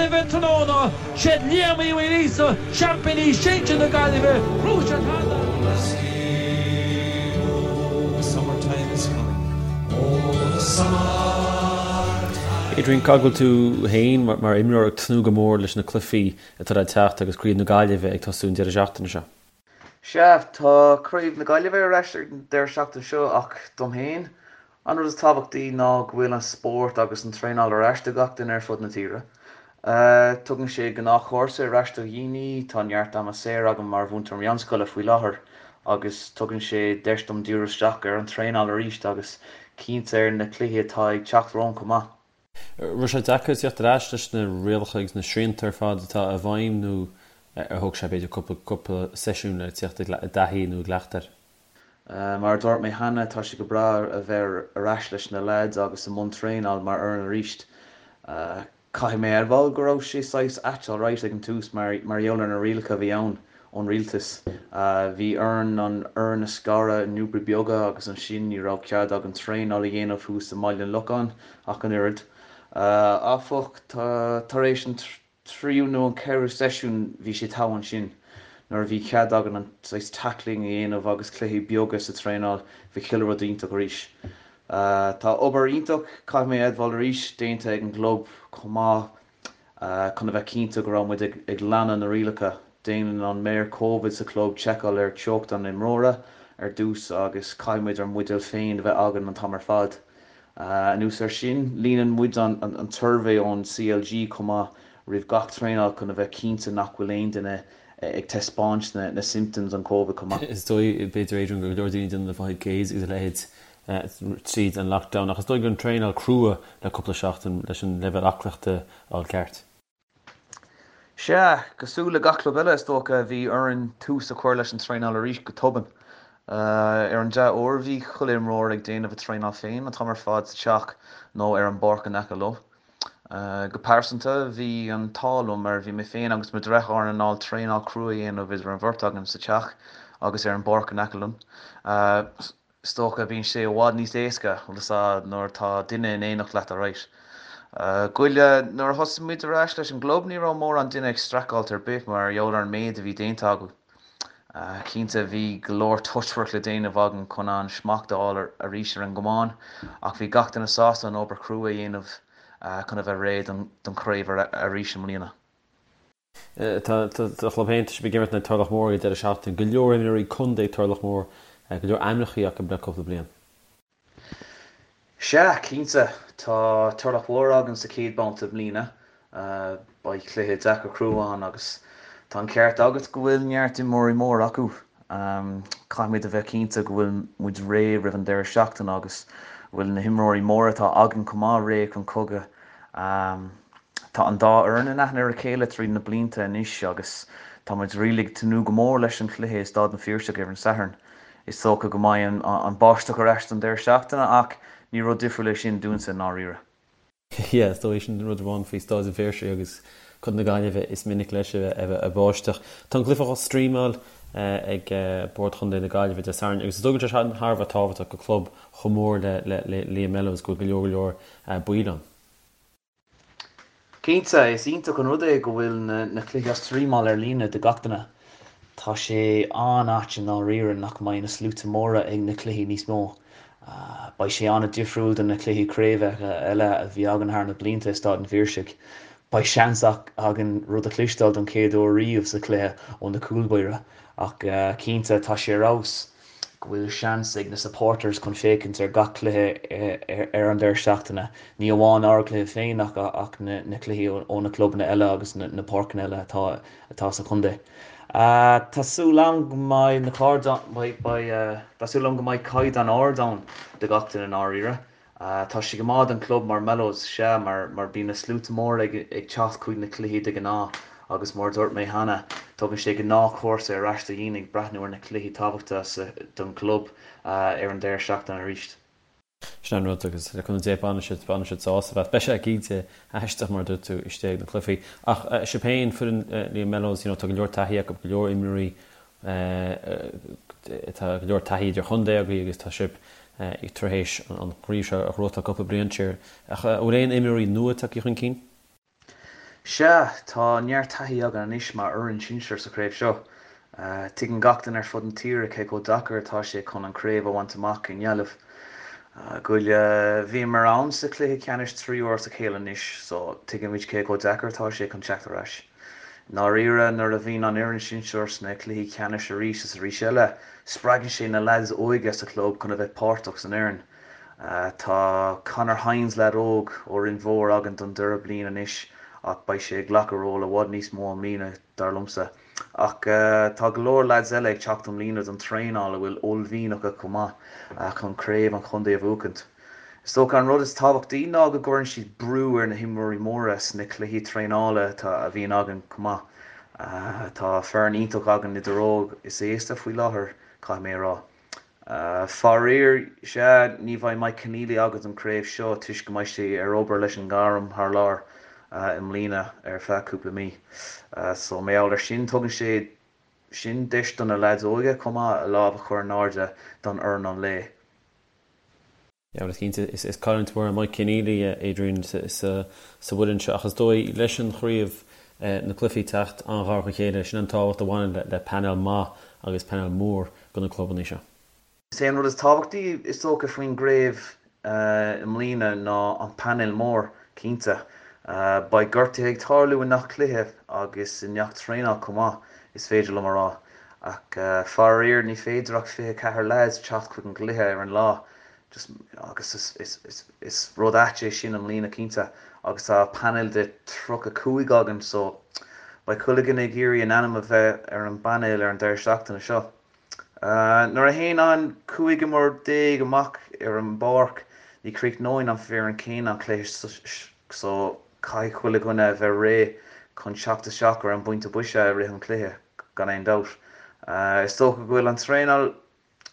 Gaillimhe tráthnóna. Siad Liam Uí Mhaoilíosa, seaimpíní sinsir na Gaillimhe, bhuaigh siad cheana. Adrian, cá bhfuil tú féin mar imreoir ag tnúth go mór leis na cluichí atá le teacht agus Craobh na Gaillimhe ag tosú an deireadh seachtaine seo? Sea, tá Craobh na Gaillimhe ar ais ar an deireadh seachtaine seo ach dom féin, an rud is tábhachtaí ná go bhfuil an spórt agus an traenáil ar ais do gach duine ar fud na tíre. Tugann sé gnáthchúrsa ar ais do dhaoine, tá neart ama saor agam mar mhúinteoir meánscoile faoi láthair agus tugann sé deis dom díriú isteach ar an traenáil arís agus cinnte ar na cluichí atá ag teacht romham chomh maith. Raibh sé deacair tíocht ar ais leis na rialacha agus na srianta ar fad atá i bhfeidhm nó ar thóg sé b'fhéidir cúpla cúpla seisiún le tíocht i dtaithí nó i gcleachtadh air? Mar a dúirt mé cheana, tá sé go breá a bheith ar ais leis na leaids agus i mbun traenáil mar fhoireann arís. Caithfidh mé a admháil go raibh sé saghas ait alright ag an tús mar mar gheall ar na rialacha a bhí ann ón rialtas. Bhí orainn an fhoireann a scaradh i ngrúpaí beaga agus ansin ní raibh cead againn traenáil a dhéanamh thuas i mBaile an Locháin ach an oiread. Áfach, tar éis an tríú nó an ceathrú seisiún bhí sé togha ansin. Nuair a bhí cead againn an saghas tackling a dhéanamh agus cluichí beaga sa traenáil bhí chuile rud iontach arís. Tá obair iontach, caithfidh mé a admháil arís, déanta ag an gclub chomh maith. Chun a bheith cinnte go raibh muid ag leanadh na rialacha, déanann an maor Covid sa chlub seiceáil ar teocht an imreora ar dtús agus caithfidh muid ár mbuidéal féin a bheith againn an t-am ar fad. Anuas air sin, líonann muid an tsuirbhé ón CLG chomh maith roimh gach traenáil chun a bheith cinnte nach bhfuil aon duine ag taispeáint na symptoms an Covid chomh maith. Is dóigh, b'fhéidir, Adrian, go leor daoine ag déanamh na 5Ks agus a leithéid tríd an lockdown ach is dóigh go raibh an traenáil crua le cúpla seachtain leis an leibhéal aclaíochta a fháil ceart. Sea, cosúil le gach club eile is dócha, bhí orainn tús a chur leis an traenáil arís go tobann. Ar an dea-uair bhí chuile imreoir ag déanamh a traenáil féin an t-am ar fad sa teach nó ar an bpáirc in aice leo. Go pearsanta, bhí an t-ádh liom mar bhí mé féin agus mo dhreatháir in ann traenáil crua a dhéanamh idir an bheirt againn sa teach agus ar an bpáirc in aice linn. Is dócha, bíonn sé i bhfad níos éasca, bhfuil fhios a'd, nuair atá duine in éineacht leat alright. Goile, nuair a thosaigh muid ar ais leis an gclub ní raibh mórán duine ag streachailt ar bith mar gheall ar an méid a bhí déanta acu. Cinnte bhí go leor touchwork le déanamh againn chun an smacht a fháil arís ar an gcamán ach bhí gach duine sásta an obair chrua a dhéanamh chun a bheith réidh don chraobh arís i mbliana. Tá do chlub féin, tá sibh ag imirt in aghaidh Turloch Mór ag an deireadh seachtaine. Go leor imreoirí contae ag Turloch Mór, go leor ainmneacha acu le cúpla bliain. Sea, cinnte. Tá Turloch Mhór againn sa chéad babhta i mbliana. Beidh cluiche deacair crua ann agus tá an ceart agat go bhfuil neart imreoirí móra acu. Caithfimid a bheith cinnte go bhfuil muid réidh roimh an deireadh seachtaine agus go bhfuil na himreoirí móra atá againn chomh maith réidh chun cogaidh. Tá an dá fhoireann in aithne ar a chéile tríd na blianta anois agus tá muid really ag tnúth go mór leis an chluiche i Staid an Phiarsaigh ar an Satharn. Is dócha go mbeidh an báisteach ar ais don deireadh seachtaine ach ní rud difriúil é sin dúinse i ndáiríre. Yeah, is dóigh sin an rud amháin faoi Staid an Phiarsaigh agus Contae na Gaillimhe, is minic leis a bheith ag báisteach. Tá an cluiche á streamáil ag Bord Chontae na Gaillimhe Dé Sathairn agus is dóigh go bhfuil sé sin thar a bheith tábhachtach do chlub chomh mór le Liam Mellows go bhfuil go leor go leor baill ann. Cinnte, is iontach an rud é go bhfuil na cluichí á streamáil ar líne do gach duine. Tá sé an-ait i ndáiríre nach mbeidh na sluaite móra ag na cluichí níos mó. Beidh sé an-difriúil do na cluichí craoibhe eile a bhí againn thar na blianta i Staid an Phiarsaigh. Beidh seans againn rud a chloisteáil don chéad uair riamh sa chluiche ó na cúlbáirí ach cinnte tá sé ar fheabhas. go bhfuil seans ag na supporters chun féachaint ar gach cluiche ar an deireadh seachtaine, ní amháin ár gcluiche féin ach ach na cluichí ó na clubanna eile agus na páirceanna eile atá atá sa chontae. Tá súil agam go mbeidh na beidh tá súil agam go mbeidh caighdeán ard ann do gach duine i ndáiríre. Tá sé go maith don club mar Mellows, sea, mar mar bíonn na sluaite móra ag ag teacht chuig na cluichí de ghnáth agus mar a dúirt mé cheana, tugann sé gnáthchúrsa ar ais do dhaoine ag breathnú ar na cluichí tábhachtacha sa don chlub ar an deireadh seachtaine arís. Sin an rud agus le cúnamh Dé bainfidh siad bainfidh siad sásamh as. Beidh sé cinnte aisteach mar a dúirt tú istigh ag na cluichí. Ach sibh féin, foireann Liam Mellows, you know, tá go leor taithí acu, go leor imreoirí Tá go leor taithí idir-chontae agaibh agus tá sibh tar éis an chraobh seo a ghnóthachtáil cúpla bliain siar. Ach an bhfuil aon imreoirí nua tagtha chun cinn? Sea, tá neart taithí againn anois mar fhoireann sinsir sa chraobh seo. Tuigeann gach duine ar fud na tíre cé chomh deacair atá sé chun an chraobh a bhaint amach i nGaillimh. Goile, bhíomar ann sa chluiche ceannais 3 uair as a chéile anois so tuigimid cé chomh deacair atá sé chun teacht ar ais. I ndáiríre, nuair a bhíonn an fhoireann sinsir sna cluichí ceannais arís is arís eile, spreagann sé na leaids óige sa chlub chun a bheith páirteach san fhoireann. Tá Conor Hynes, leaid óg ó Rinn Mhór againn don dara bliain anois ach beidh sé ag glacadh ról i bhfad níos mó i mbliana dar liomsa. Ach tá go leor leaids eile ag teacht i mbliana don traenáil a bhfuil uaillmhian acu chomh maith chun craobh an chontae a bhuachaint. Is dócha an rud is tábhachtaí ná go gcuireann siad brú ar na himreoirí móra sna cluichí traenála a bhíonn againn chomh maith. Tá foireann iontach againn idir óg is aosta faoi láthair, caithfidh mé a rá. Faraor, sea, ní bheidh Mike Conneely againn don chraobh seo toisc go mbeidh sé ar obair leis an ngairm thar lear i mbliana ar feadh cúpla mí. So, mar gheall ar sin, tugann sé sin deis do na leaids óige chomh maith a lámh a chur in airde don fhoireann an lae. Yeah, bhuel, cinnte, is cailliúint mhór é Mike Conneely, Adrian, sa bhfoireann seo ach is dóigh leis an chraobh, na cluichí teacht an-ghar dá chéile, sin an tábhacht a bhaineann le painéal maith agus painéal mór do na clubanna seo. Is é an rud is tábhachtaí is dócha faoin gcraobh i mbliana ná an painéal mór, cinnte. Beidh gortuithe ag tarlú i ngach cluiche agus i ngach traenáil chomh maith, is féidir liom a rá. Ach faraor ní féidir ach 24 leaids teacht chuig an gcluiche ar an lá just agus is rud ait é sin i mbliana cinnte agus tá painéal de 35 againn so beidh chuile dhuine ag iarraidh a n-ainm a bheith ar an bpainéal ar an deireadh seachtaine seo. Nuair a théann an 15 imreoir amach ar an bpáirc ní chríochnóidh an foireann céanna an cluiche so caithfidh chuile dhuine a bheith réidh chun teacht isteach ar an bpointe boise i rith an chluiche gan aon dabht. Is dócha go bhfuil an traenáil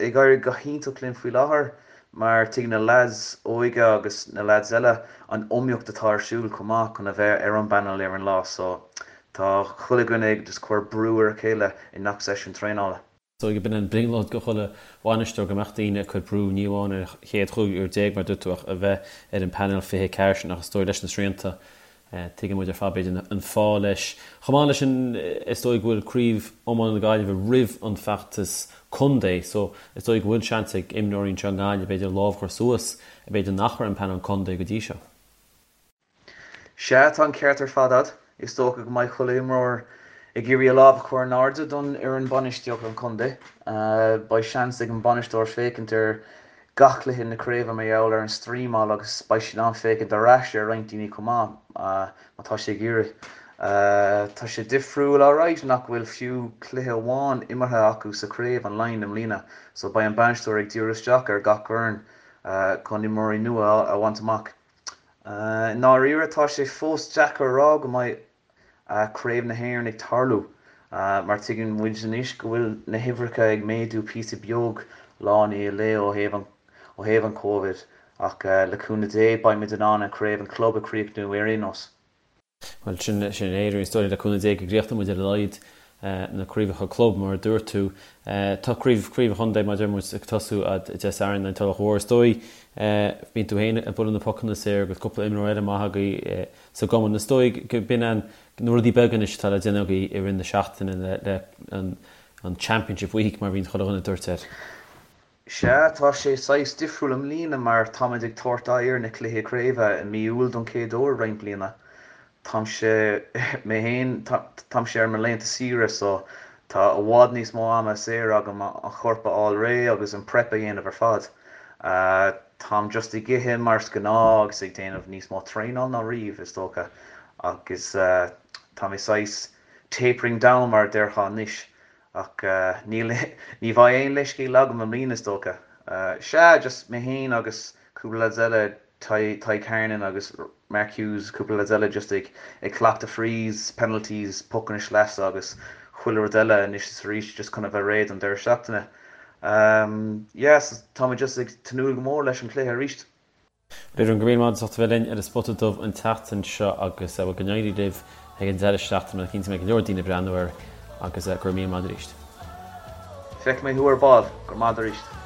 ag éirí go hiontach linn faoi láthair mar tuigeann na leaids óige agus na leaids eile an iomaíocht atá ar siúl chomh maith chun a bheith ar an bpainéal ar an lá so tá chuile dhuine ag just cur brú ar a chéile i ngach seisiún traenála. So b'in an brionglóid do chuile bhainisteoir go mbeadh daoine ag cur brú ní amháin ar an chéad chúigear mar a dúirt tú ach a bheith ar an bpainéal 24 sin ach is dóigh leis na srianta Tuigeann muid ar fad, b'fhéidir, an fáth leis. Chomh maith leis sin, is dóigh go bhfuil Craobh Iomána na Gaillimhe roimh an bhfeachtas contae so is dóigh go bhfuil seans ag imreoirí anseo i nGaillimh, b'fhéidir, lámh a chur suas, b'fhéidir nach raibh ar an bpainéal contae go dtí seo. Sea, tá an ceart ar fad a'd. Is dócha go mbeidh chuile imreoir ag iarraidh a lámh a chur in airde don fhoireann bainistíochta an chontae. Beidh seans ag an bainisteoir féachaint ar gach cluiche na craoibhe mar gheall ar an streamáil agus beidh sé in ann féachaint ar ais ar roinnt daoine chomh maith má tá sé ag iarraidh. Tá sé difriúil alright nach bhfuil fiú cluiche amháin imeartha acu sa chraobh an Laighin i mbliana so beidh an bainisteoir ag díriú isteach ar gach foireann chun imreoirí nua a bhaint amach. I ndáiríre tá sé fós deacair a rá go mbeidh Craobh na hÉireann ag tarlú mar tuigeann muid anois go bhfuil na huimhreacha ag méadú píosa beag lá i ndiaidh lae ó thaobh an ó thaobh an Covid ach le cúnamh Dé beidh muid in ann an Craobh an Club a chríochnú ar aon nós. Bhuel sin sin é is dóigh le cúnamh Dé go gcríochnóidh muid ar a laghad na craobhacha club mar a dúirt tú. Tá craobh craobh an chontae mar a deir muid ag tosú Dé Sathairn in Tulach Mhór. Is dóigh bíonn tú féin ag bualadh na pocanna saor agus cúpla imreoir eile maith agaibh sa gcumann. Is dóigh go b'in an na rudaí beaga anois atá le déanamh agaibh i rith na seachtaine le an Championship Week mar a bhíonn chuile dhuine ag tabhairt air. Sea, tá sé saghas difriúil i mbliana mar táimid ag tabhairt aghaidh ar na cluichí craoibhe i mí Iúil don chéad uair roinnt bliana. Táimse, mé féin, táimse ar mo laethanta saoire so tá i bhfad níos mó ama saor agam an chorp a fháil réidh agus an prep a dhéanamh ar fad. Táim just ag ithe mar is gnáth agus ag déanamh níos mó traenáil ná riamh, is dócha, agus tá mé saghas tapering down mar a déarfá anois, ach níl, ní bheidh aon leithscéal agam i mbliana is dócha. Sea, just mé féin agus cúpla lads eile, Tadhg Hernon agus Mark Hughes, cúpla lads eile just ag ag cleachtadh frees, penalties, pocanna sleasa agus chuile rud eile anois is arís just chun a bheith réidh don deireadh seachtaine. Yeah, so tá mé just ag tnúth go mór leis an chluiche arís. Adrian, go raibh míle maith agat as ucht a bheith linn ar an Spota Dubh an tseachtain seo agus bhuel go n-éirí libh ag an deireadh seachtaine, cinnte go mbeidh go leor daoine ag breathnú air agus go raibh míle maith agat arís. Feicfidh mé thú ar ball. Go raibh maith agat arís.